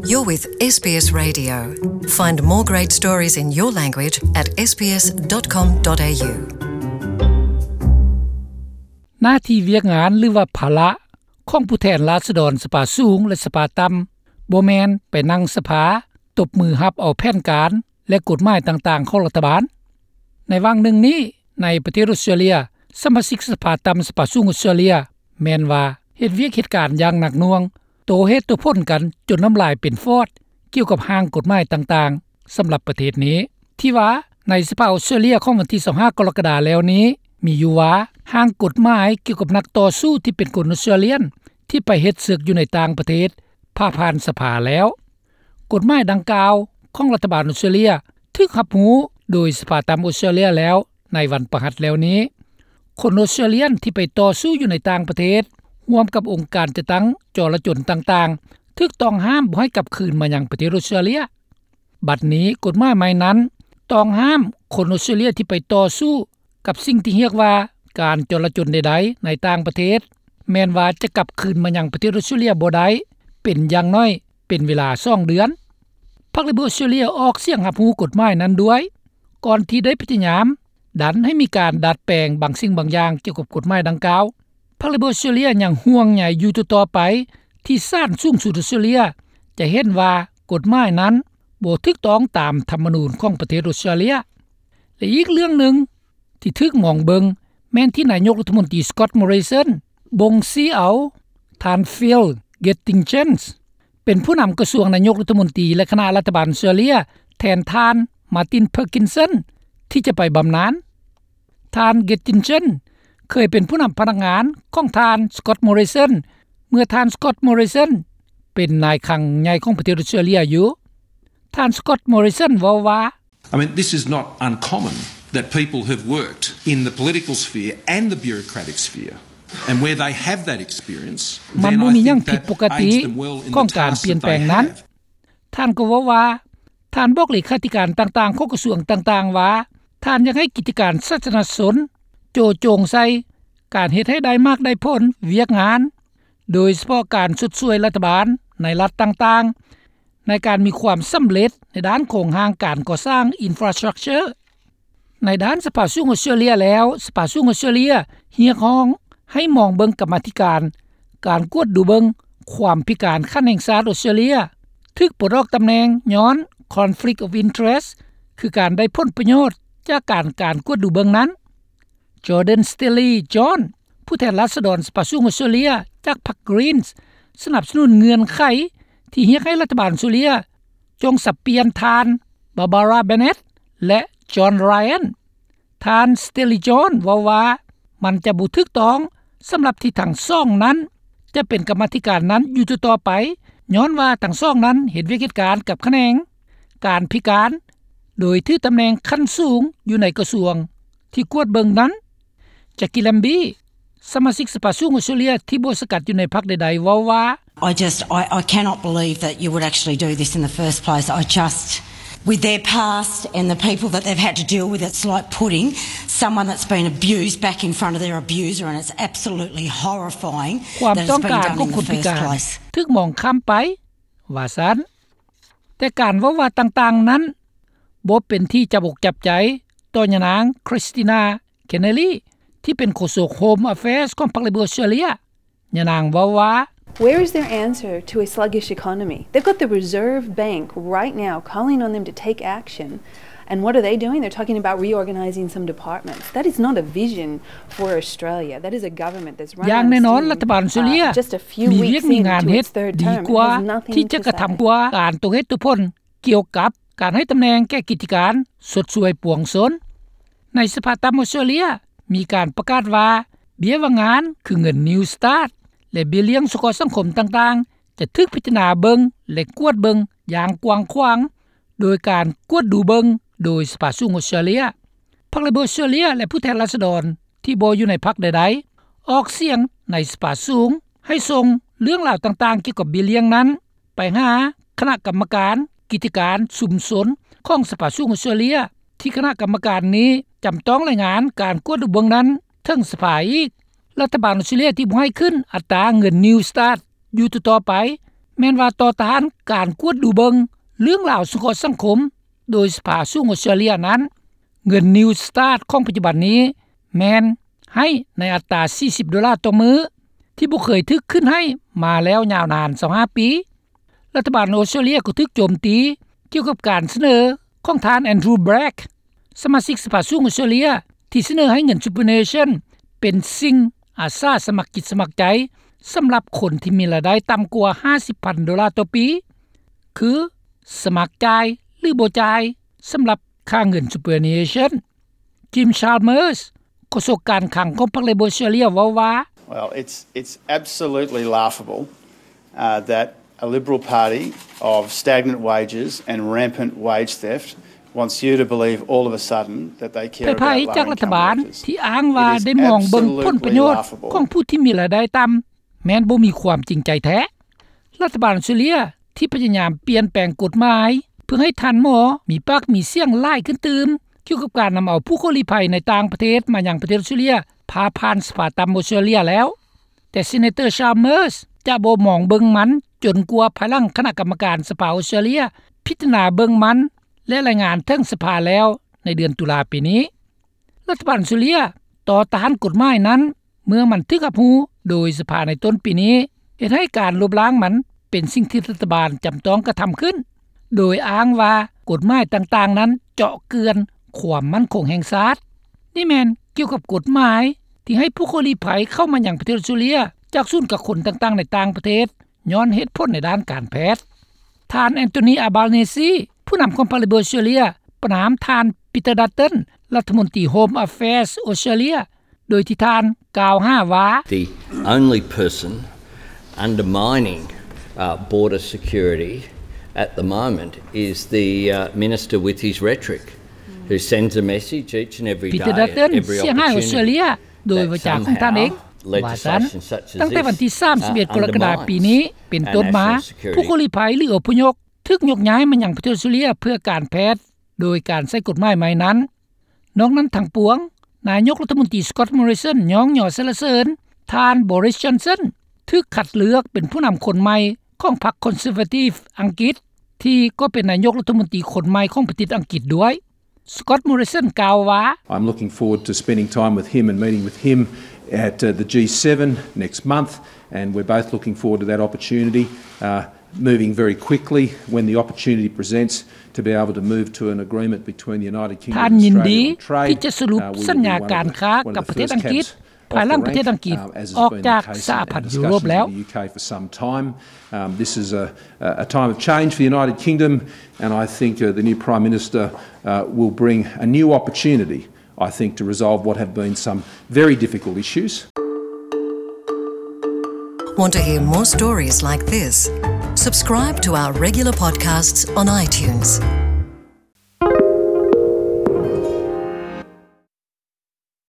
You're with SBS Radio. Find more great stories in your language at sbs.com.au. ໜ້າທີ່ວຽກງານ ຫຼືວ່າພາລະ ຂອງຜູ້ແທນລາຊະດອນສະພາສູງ ແລະ ສະພາຕ່ຳ ບໍ່ແມ່ນໄປນັ່ງສະພາ ຕົບມືຮັບເອົາແຜນການ ແລະ ກົດໝາຍຕ່າງໆຂອງລັດຖະບານ. ໃນຫວ່າງໜຶ່ງນີ້ ໃນປະເທດອົດສະຕຣາເລຍ ສະມາຊິກສະພາຕ່ຳ ສະພາສູງອົດສະຕຣາເລຍ ແມ່ນວ່າເຮັດວຽກເຮັດການຢ່າງໜັກໜ່ວງ ໂຕ້ເຫດໂຕ້ຜົນກັນຈົນນ້ຳລາຍເປັນຟອດ ກ່ຽວກັບຮ່າງກົດໝາຍຕ່າງໆ ສຳລັບປະເທດນີ້ ທີ່ວ່າໃນສະພາອົດສະຕຣາເລຍຂອງວັນທີຊາວຫ້າ ກໍລະກະດາແລ້ວນີ້ ມີຢູ່ວ່າຮ່າງກົດໝາຍກ່ຽວກັບນັກຕໍ່ສູ້ທີ່ເປັນຄົນອົດສະຕຣາເລຍນ ທີ່ໄປເຮັດເສິກຢູ່ໃນຕ່າງປະເທດ ຜ່າຜ່ານສະພາແລ້ວ. ກົດໝາຍດັ່ງກ່າວຂອງລັດຖະບານອົດສະຕຣາເລຍ ຖືກຮັບຮູ້ໂດຍສະພາຕ່ຳອົດສະຕຣາເລຍແລ້ວ ໃນວັນພະຫັດແລ້ວນີ້. ຄົນອົດສະຕຣາເລຍນທີ່ໄປຕໍ່ສູ້ຢູ່ໃນຕ່າງປະເທດ ຮ່ວມກັບອົງການຈັດຕັ້ງຈໍລະຈົນຕ່າງໆ ຖືກຕ້ອງຫ້າມບໍ່ໃຫ້ກັບຄືນມາຍັງປະເທດອົດສະຕຣາເລຍ. ບັດນີ້ກົດໝາຍໃໝ່ນັ້ນ ຕ້ອງຫ້າມຄົນອົດສະຕຣາເລຍທີ່ໄປຕໍ່ສູ້ກັບສິ່ງທີ່ຮຽກວ່າການຈໍລະຈົນໃດໆໃນຕ່າງປະເທດ ແມ່ນວ່າຈະກັບຄືນມາຍັງປະເທດອົດສະຕຣາເລຍບໍ່ໄດ້ ເປັນຢ່າງໜ້ອຍເປັນເວລາສອງເດືອນ. ພັກເລເບີອົດສະຕຣາເລຍອອກສຽງຮັບຮູ້ກົດໝາຍນັ້ນດ້ວຍ ກ່ອນທີ່ໄດ້ພະຍາຍາມດັນໃຫ້ມີການດັດແປງບາງສິ່ງບາງຢ່າງກ່ຽວກັບກົດໝາຍດັ່ງກ່າວ. ພັກເລເບີອົດສະຕຣາເລຍຍັງຫ່ວງໃຍຢູ່ຕໍ່ໆໄປ ທີ່ສານສູງສຸດອົດສະຕຣາເລຍຈະເຫັນວ່າກົດໝາຍນັ້ນບໍ່ຖືກຕ້ອງຕາມທຳມະນູນຂອງປະເທດອົດສະຕຣາເລຍ. ແລະ ອີກເລື່ອງໜຶ່ງທີ່ຖືກມອງເບິ່ງ ແມ່ນທີ່ນາຍົກລັດຖະມົນຕີ Scott Morrison ບົ່ງຊີ້ເອົາທ່ານ Phil Geldingen ເປັນຜູ້ນຳກະຊວງນາຍົກລັດຖະມົນຕີ ແລະ ຄະນະລັດຖະບານອົດສະຕຣາເລຍ ແທນທ່ານ Martin Parkinson ທີ່ຈະໄປບຳນານ. ທ່ານ Geldingen ເຄີຍເປັນຜູ້ນຳພະນັກງານຂອງທ່ານ Scott Morrison ເມື່ອທ່ານ Scott Morrison ເປັນນາຍຄັງໃຫຍ່ຂອງປະເທດອົດສະຕຣາເລຍຢູ່. ທ່ານ Scott Morrison ເວົ້າວ່າ I mean, this is not uncommon that people who've worked in the political sphere and the bureaucratic sphere, and where they have that experience, ມັນ then ບໍ່ I ມີຫຍັງ think ຜິດ that ປົກກະຕິ pays them well in ຂອງ the ການ task ປ່ຽນ that ແປງ they ນັ້ນ have. ທ່ານກໍເວົ້າວ່າ ທ່ານບອກເລຂາທິການຕ່າງໆຂອງກະຊວງຕ່າງໆວ່າ ທ່ານຢາກໃຫ້ກິດຈະການສາທາລະນະຊົນໂຈະຈົງໃສ່ການເຮັດໃຫ້ໄດ້ໝາກໄດ້ຜົນວຽກງານ ໂດຍສະເພາະການຊົດຊ່ວຍລັດຖະບານໃນລັດຕ່າງໆ ໃນການມີຄວາມສຳເລັດໃນດ້ານໂຄງຮ່າງການກໍ່ສ້າງ infrastructure. ໃນດ້ານສະພາສູງອົດສະຕຣາເລຍແລ້ວ, ສະພາສູງອົດສະຕຣາເລຍຮຽກຮ້ອງໃຫ້ມອງເບິ່ງກຳມາທິການການກວດດູເບິ່ງຄວາມພິການຂັ້ນແຫ່ງຊາດອົດສະຕຣາເລຍ ຖືກປົດອອກຕຳແໜ່ງຍ້ອນ conflict of interest ຄືການໄດ້ຜົນປະໂຫຍດຈາກການ ການກວດດູເບິ່ງນັ້ນ. Jordan Stealey-John ຜູ້ແທນລາຊະດອນສະພາສູງອົດສະຕຣາເລຍຈາກພັກ Greens ສະໜັບສະໜູນເງື່ອນໄຂທີ່ຮຽກໃຫ້ລັດຖະບານອົດສະຕຣາເລຍຈົ່ງສັບປ່ຽນທ່ານ Barbara Bennett ແລະ John Ryan. ທ່ານ Stealey-John ເວົ້າວ່າ ມັນຈະບໍ່ຖືກຕ້ອງສຳລັບທີ່ທັງສອງນັ້ນຈະເປັນກຳມາທິການນັ້ນຢູ່ຕໍ່ໆໄປ ຍ້ອນວ່າທັງສອງນັ້ນເຮັດວຽກເຮັດການກັບຂະແໜງການພິການ ໂດຍຖືຕຳແໜ່ງຂັ້ນສູງຢູ່ໃນກະຊວງທີ່ກວດເບິ່ງນັ້ນ. Jackie Lambie ສະມາຊິກສະພາສູງອົດສະຕຣາເລຍທີ່ບໍ່ສັງກັດຢູ່ໃນພັກໃດໆ ເວົ້າວ່າ I just, I, I cannot believe that you would actually do this in the first place. I just, with their past and the people that they've had to deal with, it's like putting someone that's been abused back in front of their abuser, and it's absolutely horrifying ຄວາມຕ້ອງການຂອງຄົນພິການ ຖືກມອງຂ້າມໄປ ວ່າຊັ້ນ. ແຕ່ການເວົ້າວ່າຕ່າງໆນັ້ນ ບໍ່ເປັນທີ່ຈັບອົກຈັບໃຈຕໍ່ຍານາງ Kristina Keneally ທີ່ເປັນໂຄສົກ Home Affairs ຂອງພັກ Labor ອອສເຕຣເລຍ. ຍານາງເວົ້າວ່າ Where is their answer to a sluggish economy? They've got the Reserve Bank right now calling on them to take action. And what are they doing? They're talking about reorganizing some departments. That is not a vision for Australia. That is a government that's run on steam, uh, just a few weeks into its third term. It has nothing to say. ຢ່າງແນ່ນອນ ລັດຖະບານອົດສະຕຣາເລຍມີວຽກມີງານເຮັດດີກວ່າທີ່ຈະກະທຳກວ່າການໂຕ້ເຫດໂຕ້ຜົນກ່ຽວກັບການໃຫ້ຕຳແໜ່ງແກ່ກິດຈະການຊົດຊ່ວຍປວງຊົນ. ໃນສະພາຕ່ຳອົດສະຕຣາເລຍມີການປະກາດວ່າ ເບ້ຍວ່າງງານ ຄືເງິນ Newstart ແລະ ເບ້ຍລ້ຽງສົງເຄາະສັງຄົມຕ່າງໆ ຈະຖືກພິຈາລະນາເບິ່ງ ແລະ ກວດເບິ່ງຢ່າງກວ້າງຂວາງ ໂດຍການກວດດູເບິ່ງໂດຍສະພາສູງອົດສະຕຣາເລຍ. ພັກ Labor ອົດສະຕຣາເລຍ ແລະ ຜູ້ແທນລາຊະດອນທີ່ບໍ່ຢູ່ໃນພັກໃດໆ ອອກສຽງໃນສະພາສູງໃຫ້ສົ່ງເລື່ອງລາວຕ່າງໆກ່ຽວກັບເບ້ຍລ້ຽງນັ້ນ ໄປຫາຄະນະກຳມະການກິດຈະການຊຸມຊົນຂອງສະພາສູງອົດສະຕຣາເລຍ ທີ່ຄະນະກຳມະການນີ້ຈຳຕ້ອງລາຍງານການກວດດູເບິ່ງນັ້ນເຖິງສະພາອີກ. ລັດຖະບານອົດສະຕຣາເລຍທີ່ບໍ່ໃຫ້ຂຶ້ນອັດຕາເງິນ Newstart ຢູ່ຕໍ່ໆໄປ ແມ່ນວ່າຕໍ່ຕ້ານການກວດດູເບິ່ງເລື່ອງລາວສົງເຄາະສັງຄົມໂດຍສະພາສູງອອສເຕຣເລັຽນັ້ນ, ເງິນ Newstart ຂອງປັດຈຸບັນນີ້ແມ່ນໃຫ້ໃນອັດຕາສີ່ສິບໂດລາຕໍ່ມື້ ທີ່ບໍ່ເຄີຍຖືກຂຶ້ນໃຫ້ມາແລ້ວຍາວນານຊາວຫ້າປີ. ລັດຖະບານອອສເຕຣເລັຽກໍຖືກໂຈມຕີກ່ຽວກັບການສະເໜີຂອງທ່ານ Andrew Bragg ສະມາຊິກສະພາສູງອອສເຕຣເລັຽ ທີ່ສະເໜີໃຫ້ເງິນ Superannuation ເປັນສິ່ງອາສາສະໝັກຈິດສະໝັກໃຈ ສຳລັບຄົນທີ່ມີລາຍໄດ້ຕ່ຳກວ່າຫ້າສິບພັນໂດລາຕໍ່ປີ ຄືສະໝັກຈ່າຍ ຫຼື ບໍ່ຈ່າຍ ສຳລັບຄ່າເງິນ Superannuation. Jim Chalmers ໂຄສົກການຄັງຂອງພັກ Labor ເວົ້າວ່າ Well, it's, it's absolutely laughable, uh, that a Liberal Party of stagnant wages and rampant wage theft wants you to believe all of a sudden that they care about lowering income wages. ເປັນໄພຈາກລັດຖະບານທີ່ອ້າງວ່າໄດ້ມອງເບິ່ງຜົນປະໂຫຍດຂອງຜູ້ທີ່ມີລາຍໄດ້ຕ່ຳ ແມ່ນບໍ່ມີຄວາມຈິງໃຈແທ້. ລັດຖະບານອອສເຕຣເລັຽທີ່ພະຍາຍາມປ່ຽນແປງກົດໝາຍ ເພື່ອໃຫ້ທ່ານໝໍມີປາກມີສຽງຫຼາຍຂຶ້ນຕື່ມ ກ່ຽວກັບການນຳເອົາຜູ້ຂໍລີ້ໄພໃນຕ່າງປະເທດມາຍັງປະເທດອອສເຕຣເລັຽ ຜ່າຜ່ານສະພາຕ່ຳອອສເຕຣເລັຽແລ້ວ, ແຕ່ Senator Chalmers ຈະບໍ່ມອງເບິ່ງມັນຈົນກວ່າພາຍຫຼັງຄະນະກຳມະການສະພາອອສເຕຣເລັຽພິຈາລະນາເບິ່ງມັນ ແລະ ລາຍງານເຖິງສະພາແລ້ວໃນເດືອນຕຸລາປີນີ້. ລັດຖະບານອອສເຕຣເລັຽຕໍ່ຕ້ານກົດໝາຍນັ້ນ ເມື່ອມັນຖືກຮັບຮູ້ໂດຍສະພາໃນຕົ້ນປີນີ້ ເຮັດໃຫ້ການລົບລ້າງມັນເປັນສິ່ງທີ່ລັດຖະບານຈຳຕ້ອງກະທຳຂຶ້ນ ໂດຍອ້າງວ່າກົດໝາຍຕ່າງໆນັ້ນເຈາະເຈື່ອນຄວາມໝັ້ນຄົງແຫ່ງຊາດ. ນີ້ແມ່ນກ່ຽວກັບກົດໝາຍທີ່ໃຫ້ຜູ້ຂໍລີ້ໄພເຂົ້າມາຍັງປະເທດອອສເຕຣເລັຽຈາກສູນກັກຄົນຕ່າງໆໃນຕ່າງປະເທດ ຍ້ອນເຫດຜົນໃນດ້ານການແພດ. ທ່ານ Anthony Albanese ຜູ້ນຳຂອງພັກ Labor ອອສເຕຣເລັຽ ປະນາມທ່ານ Peter Dutton ລັດຖະມົນຕີ Home Affairs ອອສເຕຣເລັຽ ໂດຍທີ່ທ່ານກ່າວຫາວ່າ The only person undermining, uh, border security at the moment is the, uh, minister with his rhetoric, who sends a message each and every day, Peter Dutton ເສຍຫາຍອອສເຕຣເລັຽໂດຍວາຈາຂອງທ່ານເອງ ວ່າຊັ້ນ. ຕັ້ງແຕ່ວັນທີສາມສິບເອັດ ກໍລະກະດາປີນີ້ເປັນຕົ້ນມາ ຜູ້ຂໍລີ້ໄພ ຫຼື ອະພະຍົບ ຖືກຍົກຍ້າຍມາຍັງປະເທດອອສເຕຣເລັຽເພື່ອການແພດ ໂດຍການໃຊ້ກົດໝາຍໃໝ່ນັ້ນ. ນອກນັ້ນທັງປວງ, ນາຍົກລັດຖະມົນຕີ Scott Morrison ຍ້ອງຍໍສັນລະເສີນ ທ່ານ Boris Johnson ຖືກຄັດເລືອກເປັນຜູ້ນຳຄົນໃໝ່ຂອງພັກ Conservative ອັງກິດ ທີ່ກໍເປັນນາຍົກລັດຖະມົນຕີຄົນໃໝ່ຂອງປະເທດອັງກິດດ້ວຍ. Scott Morrison ກ່າວວ່າ I'm looking forward to spending time with him and meeting with him at, uh, the G seven next month, and we're both looking forward to that opportunity, uh, moving very quickly when the opportunity presents to be able to move to an agreement between the United Kingdom and Australia on trade. ທ່ານຍິນດີທີ່ຈະສະຫຼຸບສັນຍາການຄ້າກັບປະເທດອັງກິດ ພາຍຫຼັງປະເທດອັງກິດອອກຈາກສະຫະພັນຢູໂຣບແລ້ວ. Um, this is a, a time of change for the United Kingdom, and I think, uh, the new Prime Minister, uh, will bring a new opportunity, I think, to resolve what have been some very difficult issues. Want to hear more stories like this? Subscribe to our regular podcasts on iTunes.